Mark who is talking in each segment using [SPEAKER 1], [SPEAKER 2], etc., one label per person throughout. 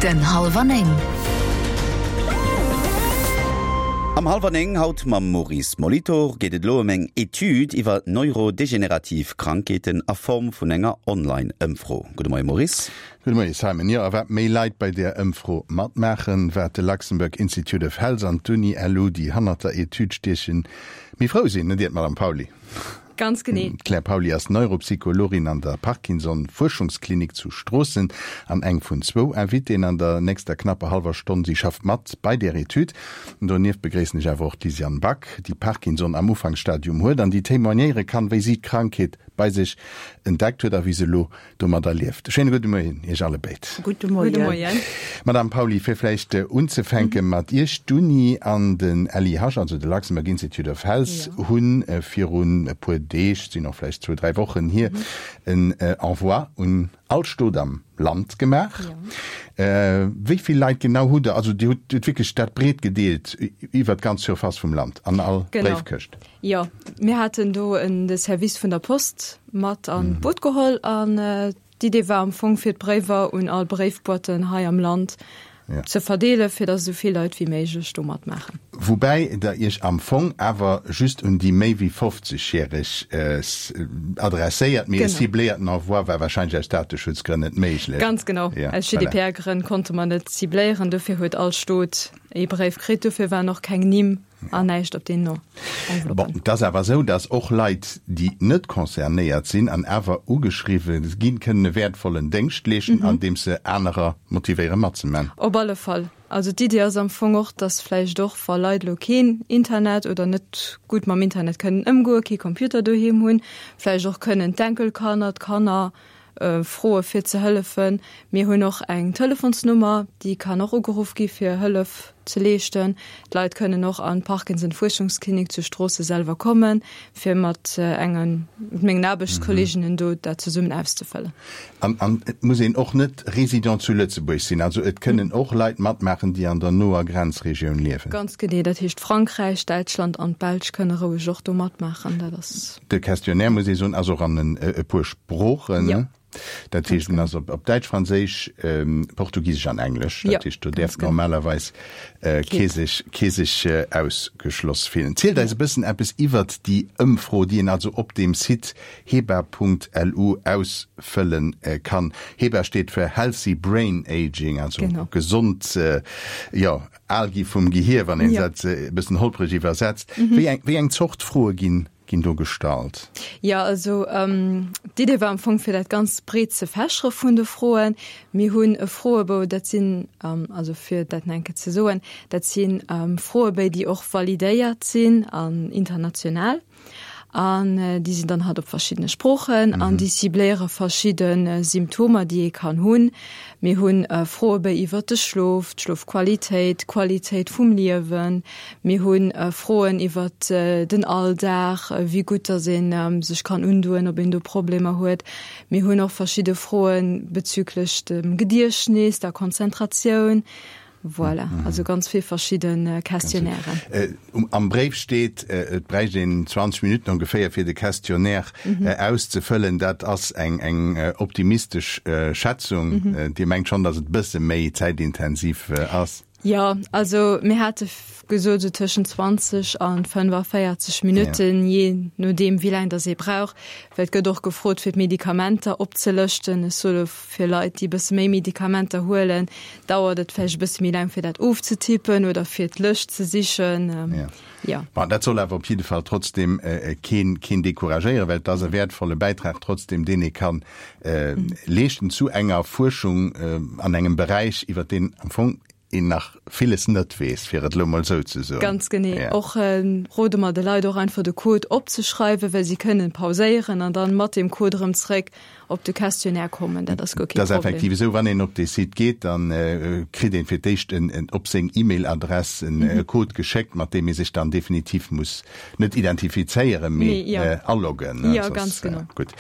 [SPEAKER 1] Den Hallwer 9.
[SPEAKER 2] Am Hallwer 9 haut mam Maurice Molitor geet et elo ëm eng Etüd iwwer neurodegenerativ Krankheeten a Form vun enger Online-Ëmfro. Gudde Moie Maurice.
[SPEAKER 3] Gudde Moie Simon. Jo, a wat méi Leit bei där Ëmfro matmaachen, wat de Luxembourg Institute of Health an d'Uni LU, déi hannert der Etüd stiechen, méi frou sinn, net iert, Madame Pauly?
[SPEAKER 4] Ganz genee.
[SPEAKER 3] D'Claire Pauly ass Neuropsychologin an der Parkinson-Fuerschungsklinik zu Stroossen an eng vun zwou Invitéen an der nächster knapper hallwer Stonn. Si schafft mat bei där Etüd. Donieft begréissen ech awer och d'Lisiane Back, déi Parkinson am Ufanksstadium huet an déi témoignéiere kann, wéi si d'Krankheet bei sech entdeckt huet a wéi se elo domadder lieft. Schéine gudde Moien Iech allebéid.
[SPEAKER 4] Gudde Moien.
[SPEAKER 3] Madame Pauly, fir vläicht unzefänke mat Iech, D'Uni an den LIH, also de Luxembourg Institute of Health, hu virun e puer Deeg, sinn och vläicht zwou, dräi Wochen hier, en Envoi un all Stot am Land gemaach. Wéi vill Leit genau hutt Der, also Dir hutt wierklech dat breet gedeelt iwwert d'ganz Surface vum Land an all Bréifkëscht?
[SPEAKER 4] Jo, mir haten do en de Service vun der Post mat an d'Boot geholl an d'Idee war am Fong fir d'Bréiwer un all Bréifboîten hei am Land ze verdeelen, fir datt esou vill Leit wéi méiglech do matmaachen.
[SPEAKER 3] Woubäi Der Iech am Fong awer just un déi méi wéi 50 järeg adresséiert, mee e cibléierten Envoi war wahrscheinlech aus Dateschutzgrënn net méiglech.
[SPEAKER 4] Ganz genau, aus GDPR-Grënn konnte mer net cibléieren, dofir huet all Stot ee Bréif kritt, dofir waren och keng Nimm An näischt op den
[SPEAKER 3] Enveloppen. Bon, et ass awer esou, datt och Leit, déi net concernéiert sinn an awer ugeschriwwe ginn, kënnen e wäertvollen Déngscht leeschten, andeems se anerer motivéiere matzeman.
[SPEAKER 4] Op alle Fall. Also d'Iddi ass am Fong och, datt vläicht och, wa Leit elo keen Internet oder net gutt mam Internet kënnen ëmgoen, kee Computer doheem hunn, vläicht och kënnen d'Enkelkanner, d'Kanner froe fir ze hëllefen. Mir hunn och eng Telefonsnummer, déi kann och ugeruff gi fir Hëllef ze leeschten. D'Leit kënnen och an d'Parkinson-Fuerschungsklinik zu Stroosse selwer kommen, fir mat engen, mat mengen Aarbechtskolleeginnen do dat zesummen auszefëllen.
[SPEAKER 3] An, an et muss een och net Résident zu Lëtzebuerg sinn, also et kënnen och Leit matmaachen, déi an der noer Grenzregioun liewen.
[SPEAKER 4] Ganz genee, dat heescht Frankräich, Däitschland an d'Belsch kënne roueg och do matmaachen. Dat ass.
[SPEAKER 3] De Questionnaire, muss ee soen, ass och an e puer Sproochen.
[SPEAKER 4] Jo.
[SPEAKER 3] Dat heescht, en ass op Däitsch, Franséisch, Portugisesch an Englesch. Dat heescht, do däerf normalerweis kee sech, kee sech ausgeschloss fillen. Zielt eis e bëssen eppes iwwert déi Ëmfro, déi een also op deem Site heba.lu ausfëlle kann. Heba steet fir Healthy Brain Aging, also gesond, jo, Al gi vum Gehier, wann een dat e bëssen holpreg iwwersetzt. Wéi eng, wéi eng Zort Froe ginn, ginn do gestallt?
[SPEAKER 4] Jo, also d'Idee war am Fong, fir dat ganz breet ze fächere vun de Froen. Mir hunn e Froebou, dat sinn, also fir dat nach eng Kéier ze soen, dat si Froebéi, déi och validéiert sinn an international. An déi sinn dann halt op verschiddene Sproochen an déi cibléiere verschidde Symptomer, déi ee kann hunn. Mir hunn Froebéi iwwert de Schlof, d'Schlofqualitéit, d'Qualitéit vum Liewen. Mir hu Froen iwwert den Alldag, wéi gutt datt ee sech kann undoen, ob een do Problemer huet. Mir hunn och verschidde Froe bezüglech dem Gediechtnis, der Konzentratioun. Voilà, also ganz vill verschidde Questionnairen.
[SPEAKER 3] Am Bréif steet, et bräicht een 20 Minutten ongeféier fir de Questionnaire auszefëllen. Dat ass eng optimistesch Schätzung. Dir mengt schonn, datt et e bësse méi zäitintensiv ass?
[SPEAKER 4] Jo, also mir hate gesot esou tëschent 20 a 45 Minutten, jee nodeem wéi laang datt ee brauch, well et gëtt och gefrot fir d'Medikamenter opzelëschten. Ech soe Fir Leit, déi e bësse méi Medikamenter huelen, dauert et vläicht e bësse méi laang, fir dat ofzetippen oder fir d'Lëscht ze sichen.
[SPEAKER 3] Jo. Bon, dat soll awer op jidde Fall trotzdem keen, keen decouragéieren, well et ass e wäertvolle Bäitrag trotzdem, deen ee kann leeschten zu enger Fuerschung an engem Beräich, iwwer deen am Fong een nach villes net weess, fir et elo mol esou ze soen.
[SPEAKER 4] Ganz genee. Och rode mer de Leit och einfach de Code opzeschreiwen, well si kënnen pauséieren an dann mat deem Code erëm zréck op de Questionnaire kommen. Dat ass guer kee
[SPEAKER 3] Problem. Dat ass effektiv esou. Wann een op dee Site geet, da kritt een fir d'éischt en op seng E-Mail-Adress en Code geschéckt, mat deem ee sech dann definitiv muss net identifizéieren, mee aloggen.
[SPEAKER 4] Jo, ganz genau.
[SPEAKER 3] Gutt.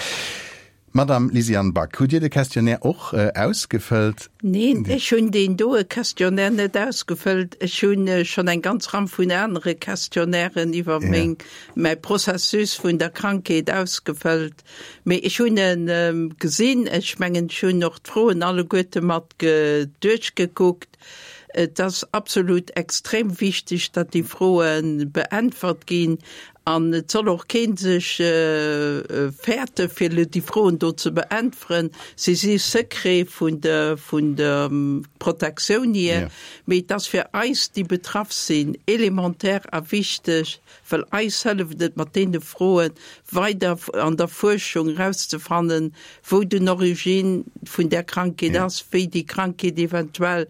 [SPEAKER 3] Madame Lysiane Back, hutt Dir de Questionnaire och ausgefëllt?
[SPEAKER 1] Neen, ech hunn deen doe Questionnaire net ausgefëllt. Ech hu schonn eng ganz Ram vun anere Questionnairen iwwer meng, mäi Processus vun der Krankheet ausgefëllt. Mee ech hunn e gesinn. Ech mengen, ech hunn och d'Froen alleguerte mat duerchgekuckt. Et ass absolut extrem wichteg, datt déi Froe beäntwert ginn. An et soll och kee sech fäerte fir elo déi Froen do ze beäntweren. Se si Secret vun der vun der Protektioun hier, mee et ass fir eis, déi betraff sinn, elementaire a wichteg, well eis hëlleft et mat deene Froe weider an der Fuerschung erauszefannen, wou den Origine vun där Krankheet ass, wéi déi Krankheet eventuell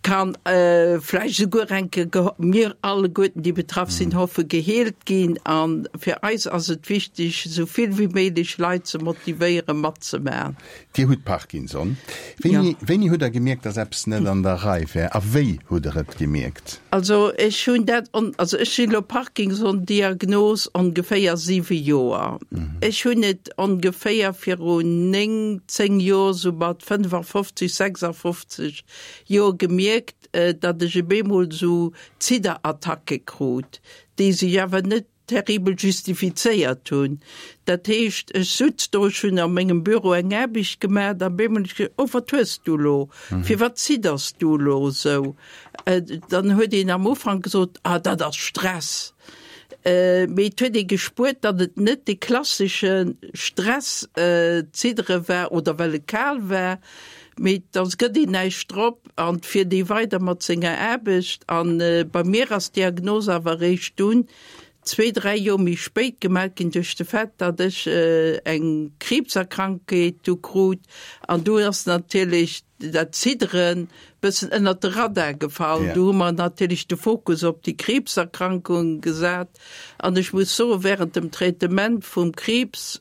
[SPEAKER 1] kann vläicht esouguer eng Kéier, mir alleguerten, déi betraff sinn, hoffen, geheelt ginn. A fir eis ass et wichteg, esou vill wéi méiglech Leit ze motivéieren, matzemaachen.
[SPEAKER 3] Dir hutt Parkinson. Wéini, wéini hutt Der gemierkt, dass eppes net an der Rei wär? A wéi hutt Der et gemierkt?
[SPEAKER 1] Also ech hunn dat, also ech sinn elo Parkinson-Diagnos ongeféier siwe Joer. Ech hunn et ongeféier virun néng, zéng Joer, esou mat 55, 56 Joer gemierkt, datt ech op eemol esou Zidderattacke krut, déi sech awer net terribel justifizéiert hunn. Dat heescht, ech sutz do, ech hunn a mengem Büro eng Aarbecht gemaach, an op eemol hunn ech gesot, Oh, wat hues du elo? Firwat zidders du elo esou? Dann huet een am Ufank gesot, Ah, dat ass Stress. Mee et huet ee gespuert, datt et net dee klassesche Stress-Ziddere war oder well et kal war, mee da gëtt een näischt drop an et fiert ee weider mat senger Aarbecht. A bei mir ass d'Diagnos awer eréischt dunn zwee, dräi Joer méi spéit gemellt ginn duerch de Fait, datt ech eng Kriibserkrankheet du krut. An du ass natierlech dat Zidderen bëssen ënnert de Radar gefall. Do hu mer natierlech de Fokus op déi Kriibserkrankung gesat. An ech muss soen, während dem Traitement vum Kriibs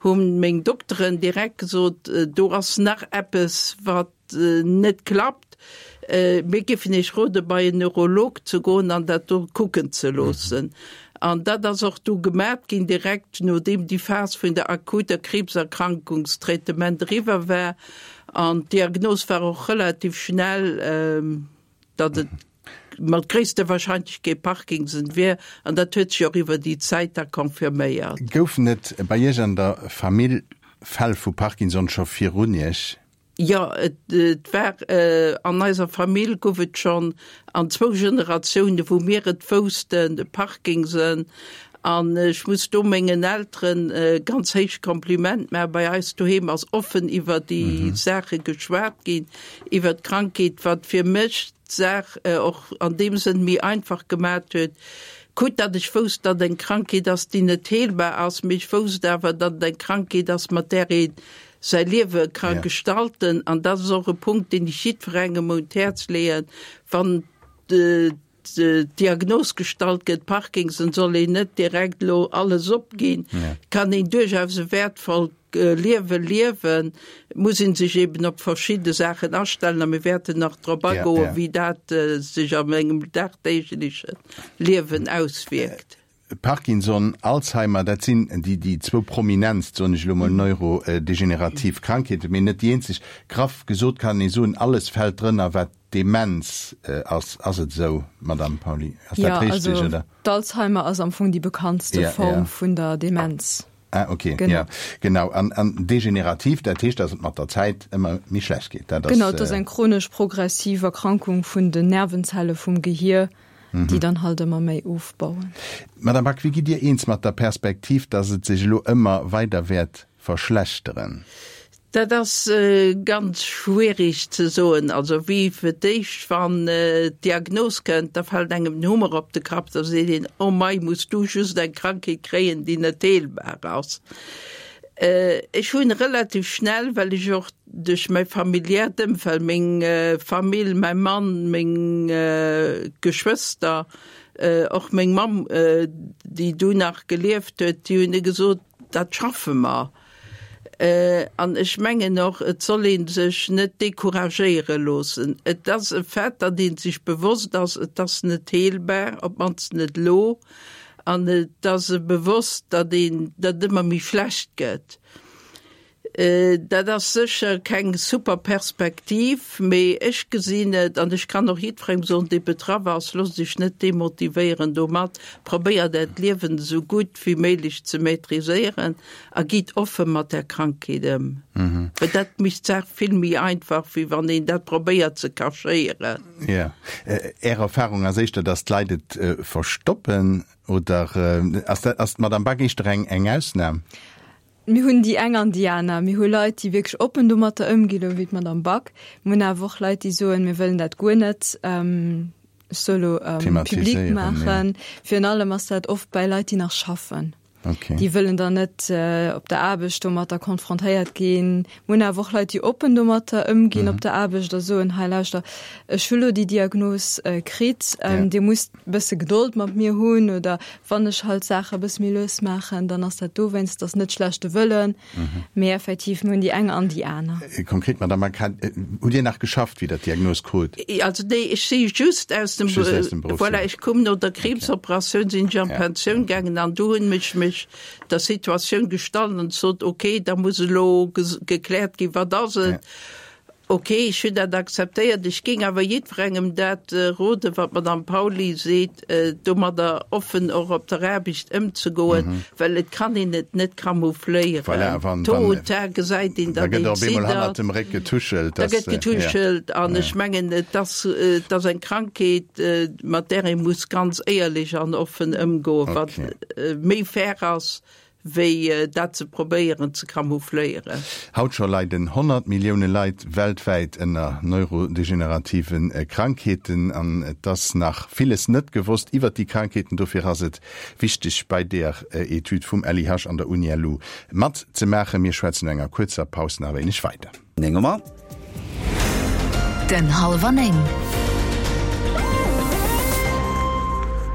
[SPEAKER 1] hu meng Dokteren direkt gesot, do ass nach eppes, wat net klappt. Mir géifen Iech rode bei en Neurolog ze goen an dat do kucken ze loossen. An dat ass och du gemat ginn, direkt nodeem déi Phas vun der akuter Kriibserkrankungstraitement eriwwer war. An d'Diagnos war och relativ schnell, datt et mat gréisster Wahrscheinlechkeet Parkinson wier. An dat huet sech och iwwer déi Zäit da confirméiert.
[SPEAKER 3] Goufen et bei Iech an der Famill Fäll vu Parkinson scho virun Iech?
[SPEAKER 1] Jo, et war, an eiser Famill gouf et schonn an zwou Generatiounen, wou mir et woussten, de Parkinson. An ech muss do mengen Elteren e ganz héicht Kompliment maachen. Bei eis doheem ass offen iwwer déi Saache geschwat ginn, iwwer d'Krankheet, wat fir mech d'Saach och an deem Sënn méi einfach gemat huet. Quitt datt ech wousst, datt et eng Krankheet ass, déi net heelbar ass, mee ech wousst awer, datt et eng Krankheet ass, mat där ee säi Liewe ka gestalten. An dat ass och e Punkt, deen ech jiddwerengem un d'Häerz leeën, wann d'Diagnos gestallt gëtt, Parkinson, soll een net direkt elo alles opginn. Et kann een duerchaus e wäertvollt Liewe liewen, et muss ee sech eben op verschidde Saachen astellen a mir wäerten nach drop agoen, wéi dat sech an engem dagdeegleche Liewen auswierkt.
[SPEAKER 3] Parkinson, Alzheimer, dat sinn déi déi zwou prominentst, soen ech elo mol, neurodegenerativ Krankheeten, mee net déi eenzeg. Graff gesot kann ee soen, alles fält drënner, wat Demenz ass. Ass et esou, Madamm Pauly? Ass dat richteg,
[SPEAKER 4] oder? Jo, also d'Alzheimer ass am Fong déi bekanntste Form vun der Demenz.
[SPEAKER 3] Ah, okay, ja, genau. An, an degenerativ, dat heescht, dass et mat der Zäit ëmmer méi schlecht geet.
[SPEAKER 4] Dat ass. Genau, et ass eng chronesch progressiv Erkrankung vun den Nervenzelle vum Gehier, déi dann halt ëmmer méi ofbauen.
[SPEAKER 3] Madame Back, wéi gitt Dir eens mat der Perspektiv, dass et sech elo ëmmer weider wäert verschlechteren?
[SPEAKER 1] Dat ass ganz schwierig ze soen. Also wéi fir d'éischt, wann d'Diagnos kënnt, da fält engem den Hummer op de Kapp, da seet een, oh mei, muss du just eng Krankheet kréien, déi net heelbar ass. Ech hunn relativ schnell, well ech och duerch mäi familiäert Ëmfeld, meng Famill, mäi Mann, meng Geschwëster, och meng Mamm, déi du nach gelieft huet, déi hunn gesot, dat schaffe mer. An ech mengen och, et soll ee sech net decouragéiere loossen. Et ass e Fait, datt ee sech bewosst ass, et ass net heelbar, op d'mannst net elo. An et ass e bewosst, datt een, datt et ëmmer méi schlecht gëtt. Dat ass sécher keng super Perspektiv, mee ech gesinn et, an ech kann och jiddwerengem soen, dee betraff ass, Loosst Iech net demotivéieren domat, probéiert Äert Liewen esou gutt wéi méiglech ze maîtriséieren a gitt offe mat där Krankheet ëm. Well dat mécht d'Saach vill méi einfach, wéi wann een dat probéiert ze cachéieren.
[SPEAKER 3] Jo. Är Erfahrung ass éischter, datt d'Leit et verstoppen, oder ass dat, ass d'Madame Back éischter eng, eng Ausnam?
[SPEAKER 4] Mir hunn déi eng an déi aner. Mir hu Leit, déi wierklech oppen domatter ëmginn, elo wéi d'Madame Back. Mir hunn awer och Leit, déi soen, mir wëllen dat guer net, ech soe elo, public maachen. Virun allem ass dat oft bäi Leit, déi nach schaffen. Déi wëllen dann net op der Aarbecht domatter konfrontéiert ginn. Mir hunn awer och Leit, déi oppen domatter ëmginn op der Aarbecht a soen, hei lauschter, ech hu lo déi Diagnos kritt, Dir musst e bësse Gedold mat mir hunn oder wann ech halt Saache e bësse méi lues maachen, dann ass dat dowéinst, et ass net schlechte Wëllen, mee effektiv, mir hunn déi eng an déi aner.
[SPEAKER 3] Konkret, Madame Mack, hutt Dir nach geschafft, wéi Der d'Diagnos krut?
[SPEAKER 1] Also nee, ech si just aus dem,
[SPEAKER 3] Just aus dem Beruff,
[SPEAKER 1] voilà, ech koum no der Kriibsoperatioun, sinn ech an d'Pensioun gaangen an do hunn ech mech der Situatioun gestallt an sot, okay, da muss elo gekläert ginn, wat ass et? Ok, ech hunn dat akzeptéiert. Ech géing awer jiddwerengem dat roden, wat d'Madame Pauly seet, domadder offen och op der Aarbecht ëmzegoen, well et kann een et net camoufléieren.
[SPEAKER 3] Voilà, wann,
[SPEAKER 1] Tôt ou tard gesäit een,
[SPEAKER 3] da
[SPEAKER 1] datt
[SPEAKER 3] gëtt
[SPEAKER 1] een
[SPEAKER 3] op eemol hannert
[SPEAKER 1] ziddert.
[SPEAKER 3] dem Réck getuschelt.
[SPEAKER 1] Da gëtt getuschelt an ech mengen, et ass, et ass eng Krankheet, mat där ee muss ganz éierlech an offen ëmgoen, wat méi fair ass, wéi dat ze probéieren ze camoufléieren.
[SPEAKER 3] Haut scho leiden 100 Millioune Leit weltwäit ënner neurodegenerative Krankheeten an et ass nach villes net gewosst iwwert déi Krankheeten. Dofir ass et wichteg bei deer Etüd vum LIH an der UniLu matzemaachen. Mir schwätzen no enger kuerzer Paus nach e wéineg weider.
[SPEAKER 2] 9 Auer.
[SPEAKER 5] Den Hallwer 9.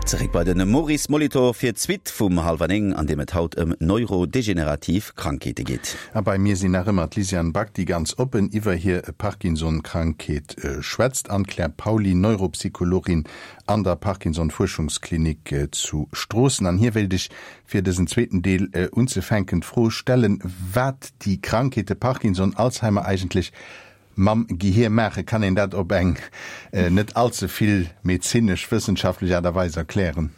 [SPEAKER 2] Zeréck bei den Maurice Molitor fir d'Suite vum Hallwer 9, an deem et haut ëm neurodegenerativ Krankheete geet.
[SPEAKER 3] A bei mir sinn nach ëmmer d'Lysiane Back, déi ganz oppen iwwer hir Parkinson-Krankheet schwätzt, an d'Claire Pauly, Neuropsychologin an der Parkinson-Fuerschungsklinik zu Stroossen. An hir wéilt ech fir dësen zweeten Deel unzefänken, d'Fro stellen, wat déi Krankheete Parkinson, Alzheimer eigentlech mam Gehier maachen. Kann een dat op eng net allze vill medezinesch, wëssenschaftlech Aart a Weis erklären?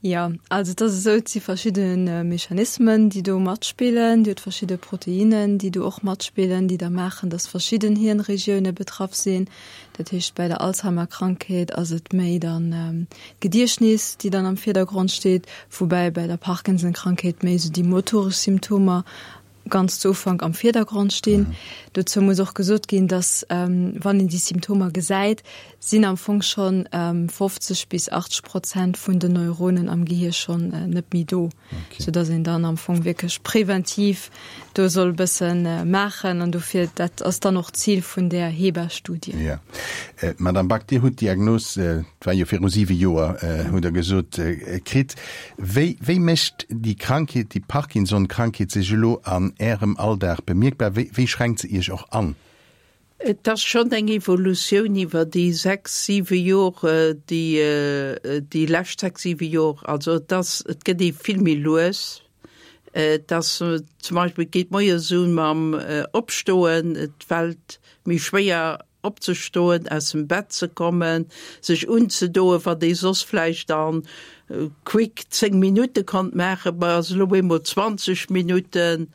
[SPEAKER 4] Jo, also et ass esou, et si verschidde Mechanismen, déi do matspillen. Dir hutt verschidde Proteinnen, déi do och matspillen, déi da maachen, datt verschidden Hirnregioune betraff sinn. Dat heescht, bei der Alzheimer-Krankheet ass et méi dann d'Gediechtnis, déi dann am Virdergrond steet, woubäi bei der Parkinson-Krankheet méi esou déi motoresch Symptomer ganz zu Ufank am Virdergrond stinn. Dozou muss och gesot ginn, dass, wann een déi Symptomer gesäit, sinn am Fong schonn 50 bis 80 Prozent vun den Neuronen am Gehier schonn net méi do. Okay. Soudass een dann am Fong wierklech präventiv do soll e bësse maachen. An dofir, dat ass dann och d'Zil vun där HeBA-Studie.
[SPEAKER 3] Ja. Madame Back, Dir hutt d'Diagnos, et war jo viru siwe Joer, hutt Der gesot, kritt. Wéi, wéi mécht déi Krankheet, déi Parkinson-Krankheet sech elo an Ärem Alldag bemierkbar? Wéi, wéi schränkt se Iech och an?
[SPEAKER 1] Et ass schonn eng Evolutioun iwwer déi sechs, siwe Jor, déi, déi lescht sechs, siwe Jor. Also et ass, et gëtt ee vill méi lues. Et ass zum Beispill, et geet moies u mam Opstoen, et fält méi schwéier opzestoen, aus dem Bett ze kommen, sech unzedoen, wat ee soss vläicht a quick 10 Minutte konnt maachen, ma ass elo eemol 20 Minutten.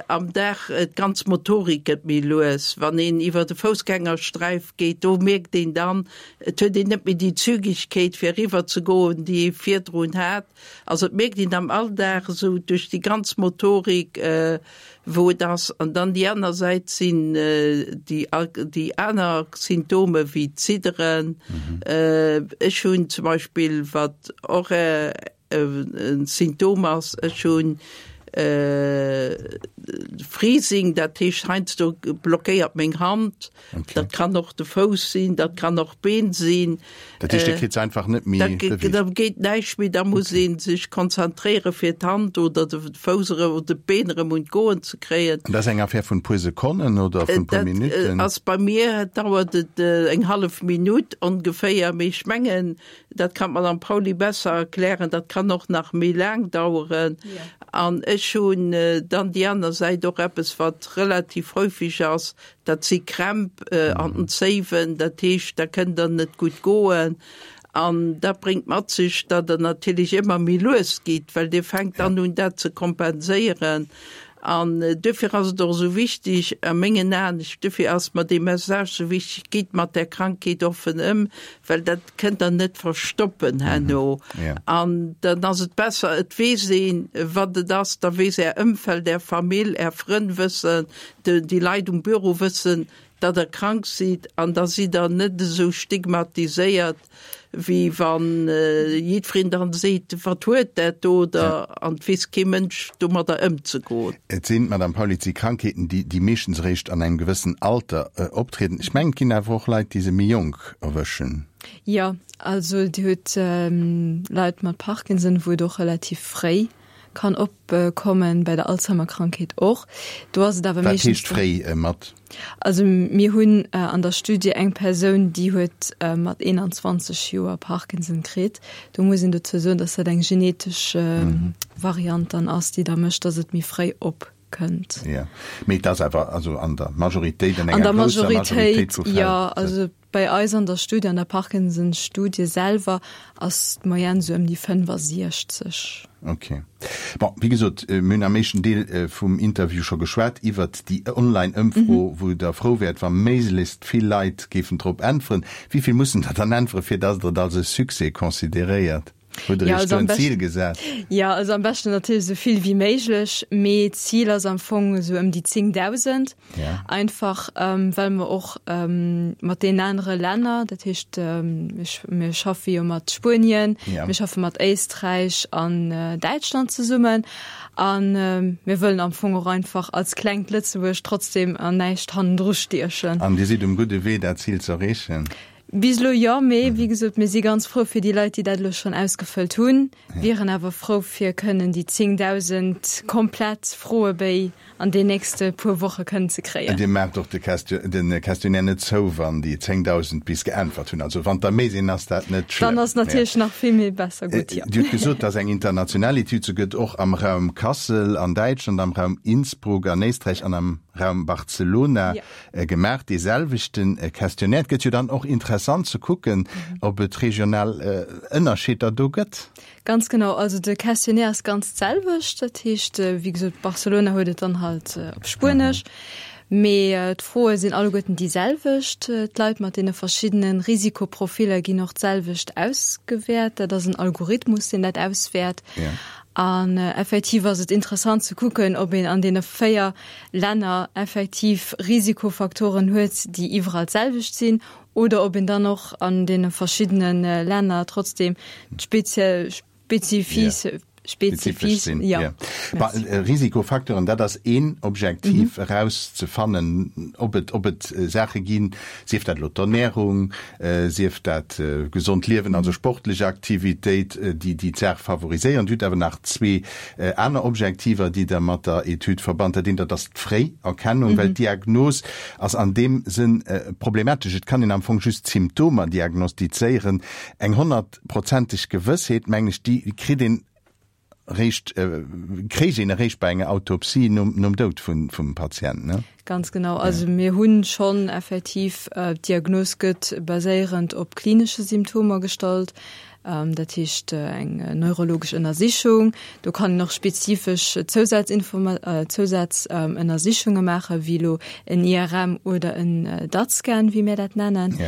[SPEAKER 1] Am Dag, d'ganz Motorik gëtt méi lues. Wann een iwwer de Foussgängersträif geet, do mierkt een dann, et huet een net méi déi Zügegkeet fir eriwwer ze goen, déi ee virdrun hat. Also et mierkt een am Alldag esou duerch déi ganz Motorik, wou et ass. An dann déi aner Säit sinn déi déi aner Symptome wéi d'Zidderen. Ech hunn zum Beispill, wat och E Symptom ass, ech hunn Freezing, dat heescht heiansdo blockéiert meng Hand. Okay. Dat kann och de Fouss sinn, dat kann och d'Been sinn.
[SPEAKER 3] Dat heescht, Dir kritt se einfach net méi
[SPEAKER 1] beweegt? Da geet näischt méi, da muss ee sech konzentréiere fir d'Hand oder de Fouss erëm oder d'Been erëm un d'Goen ze kréien.
[SPEAKER 3] An dat ass eng Affär vun puer Sekonnen oder vun puer Minutten?
[SPEAKER 1] Dat ass bei mir, dauert et eng hallef Minutt ongeféier, mee ech mengen, Dat kann d'Madame Pauly besser erklären. Dat kann och nach méi laang daueren. An ech hunn dann déi aner Säit och eppes, wat relativ häufig ass, dat si Krämp an den Zéiwen. Dat heescht, da kënnt Der net gutt goen. An dat bréngt mat sech, datt Der natierlech ëmmer méi lues gitt, well Dir fänkt dann un, dat ze kompenséieren. An duerfir ass et och esou wichtig, a mengen Aen, duerfir ass mer dee Message esou wichtig, Gitt mat där Krankheet offen ëm, well dat kënnt Der net verstoppen herno. An dann ass et besser, et weess een, wat et ass, da weess Är Ëmfeld, Är Famill, Är Frënn wëssen, déi Leit um Büro wëssen, datt Der krank sidd, an da sidd Der net esou stigmatiséiert, wéi wann jiddwereen dann seet, wat huet dat do, oder an et weess kee Mënsch domadder ëmzegoen.
[SPEAKER 3] Et sinn, Madame Pauly, et si Krankheeten, déi déi meeschtens eréischt an engem gewëssen Alter optrieden. Ech mengen, et ginn awer och Leit, déi se méi jonk erwëschen.
[SPEAKER 4] Jo, also Dir hutt Leit mat Parkinson, wou et och relativ fréi kann opkommen, bei der Alzheimer-Krankheet och. Do ass et awer
[SPEAKER 3] meeschtens. Wat heescht fréi mat?
[SPEAKER 4] Also mir hunn an der Studie eng Persoun, déi huet mat 21 Joer Parkinson kritt. Do muss een dozou soen, datt dat eng genetesch Variant dann ass, déi da mécht, datt et méi fréi opkënnt.
[SPEAKER 3] Jo, mee et ass awer also an der Majoritéit, an enger grousser Majoritéit vu
[SPEAKER 4] Fäll. Jo, also Bei eis an der Studie, an der Parkinson-Studie selwer, ass d'Moyenne sou ëm déi 65.
[SPEAKER 3] Ok. Bon, wéi gesot, mir hunn am éischten Deel vum Interview scho geschwat iwwert déi Online-Ëmfro, wou Der frou wäert, wa méiglechst vill Leit géifen drop äntweren. Wéi vill mussen der dann äntweren, fir datt Der et als e Succès consideréiert? Hutt Der Iech do en Zil gesat?
[SPEAKER 4] Jo, also am beschten natierlech esou vill wéi méiglech, mee d'Zil ass am Fong esou ëm déi 10.000. Einfach well mer och mat deenen anere Länner, dat heescht mir schaffe jo mat Spuenien, mir schaffe mat Éisträich an Däitschland zesummen a mir wëllen am Fong och einfach als klengt Lëtzebuerg trotzdem an näischt hannendru stiechen.
[SPEAKER 3] An Dir sidd um gudde Wee, dat Zil z'erreechen?
[SPEAKER 4] Bis elo jo, mee wéi gesot, mir si ganz frou fir déi Leit, déi dat elo schonn ausgefëllt hunn, wieren awer frou fir kënnen déi 10.000 komplett Froebéi an den nächste puer Woche kënnen ze kréien.
[SPEAKER 3] Dir maacht och de Questionnaire net zou, wann déi 10.000 bis geäntwert hunn. Also wann der méi sinn, ass dat net
[SPEAKER 4] schlëmm. Dann ass natierlech nach vill méi besser gutt, jo.
[SPEAKER 3] Dir hutt gesot, dass eng international Etüd, se gëtt och am Raum Kassel an Däitschland, am Raum Innsbruck an Éisträich an am Raum Barcelona gemaach, dee selwechte Questionnaire. Et gëtt jo dann och interessant ze kucken, ob et regional Ënnerscheeder do gëtt.
[SPEAKER 4] Ganz genau. Also de Questionnaire ass ganz d'selwecht. Dat heescht, wéi gesot, Barcelona huet et dann halt op Spuenesch. Mee d'Froe sinn alleguerten déi selwecht. D'Leit mat deene verschiddene Risikoprofiller ginn och d'selwecht ausgewäert. Dat ass en Algorithmus, deen dat auswäert. An effektiv ass et interessant ze kucken, ob een an deene 4 Länner effektiv Risikofaktoren huet, déi iwwerall d'selwecht sinn, oder ob een dann och an deene verschiddene Länner trotzdem d'speziell spezifis
[SPEAKER 3] spezifis sinn. Ja. Merci. Risikofacteuren, dat ass een Objektiv, erauszefannen, ob et, ob et Saache ginn, sief dat elo d'Ernärung, sief dat gesond Liewen, also sportlech Aktivitéit, déi déi d'Saach favoriséieren. Dir hutt awer nach zwee Aner Objektiver, déi Der mat der Etüd verbannt, dat eent, dat ass d'Fréierkennung, well d'Diagnos ass an deem Sënn problematesch. Et kann een am Fong just d'Symptomer diagnostizéieren. Eng honnertprozenteg Gewëssheet, mengen ech, déi kritt een eréischt, kréich een eréischt bei enger Autopsie nom Doud vum Patient, ne?
[SPEAKER 4] Ganz genau. Also mir hunn schonn effektiv, d'Diagnos gëtt baséierend op klinesche Symptomer gestallt, dat heescht eng neurologesch Ënnersichung. Do kann een och spezifesch Zousazënnersichunge maachen, wéi elo en IRM oder en DAT-Scan, wéi mir dat nennen.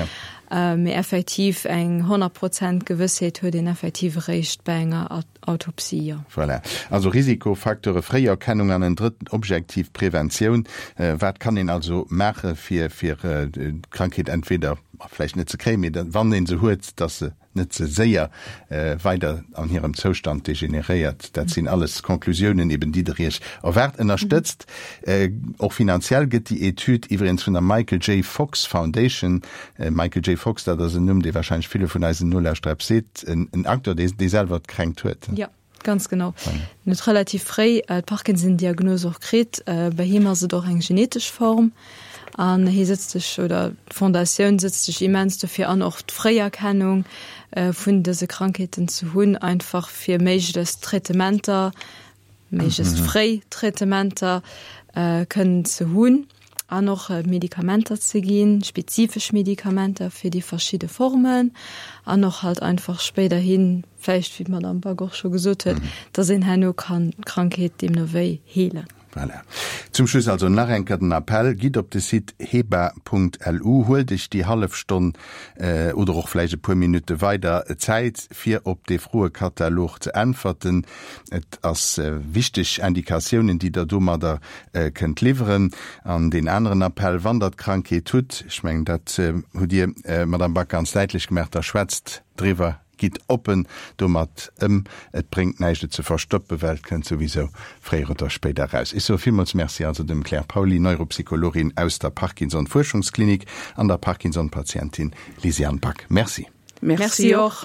[SPEAKER 4] Mee effektiv eng 100 Prozent Gewëssheet huet een effektiv eréischt bei enger Autopsie, jo.
[SPEAKER 3] Voilà. Also Risikofacteure, Fréierkennung an en drëtten Objektiv, Preventioun. Wat kann een also maache fir fir d'Krankheet entweder vläicht net ze kréien, mee wann ee se huet, dass se net ze séier weider an hirem Zoustand degeneréiert. Dat sinn alles Conclusiounen eben, déi Der Iech erwaart. Ënnerstëtzt och finanziell gëtt déi Etüd iwwregens vun der Michael J. Fox Foundation. Michael J. Fox, dat ass en Numm, dee warscheinlech ville vun eisen Nolauschterer eppes seet. En Acteur, dee selwer d'Kränkt huet.
[SPEAKER 4] Jo, ganz genau. En huet relativ fréi d'Parkinson-Diagnos och kritt. Bei him ass et och eng genetesch Form. An hie sëtzt sech, oder d'Fondatioun sëtzt sech immens dofir an, och d'Fréierkennung vun dëse Krankheeten ze hunn, einfach fir méiglechst Traitementer. méiglechst fréi Traitementer kënnen ze hunn an och Medikamenter ze ginn, spezifesch Medikamenter fir déi verschidde Formen an och halt einfach spéiderhin vläicht, wéi d'Madame Back och scho gesot huet, dass een herno kann d'Krankheet deemno wéi heelen.
[SPEAKER 3] Voilà. Zum Schluss also nach eng Kéier den Appell, Gitt op de Site heba.lu, huelt Iech déi hallef Stonn oder och vläicht e puer Minutte weider Zäit, fir op dee Froekatalog ze äntwerten. Et ass wichteg Indikatiounen, déi Der domadder kënnt liwweren. An deen aneren Appell, Wann Der d'Krankheet hutt, ech mengen, dat hutt Dir, Madamm Back, ganz däitlech gemaach, da schwätzt driwwer, Gitt oppen domat ëm, et bréngt näischt et ze verstoppen, well et kënnt souwisou fréier oder spéider eraus. Ech soe villmools Merci also dem Claire Pauly, Neuropsychologin aus der Parkinson-Fuerschungsklinik an der Parkinson-Patientin Lysiane Back. Merci.
[SPEAKER 1] Merci och.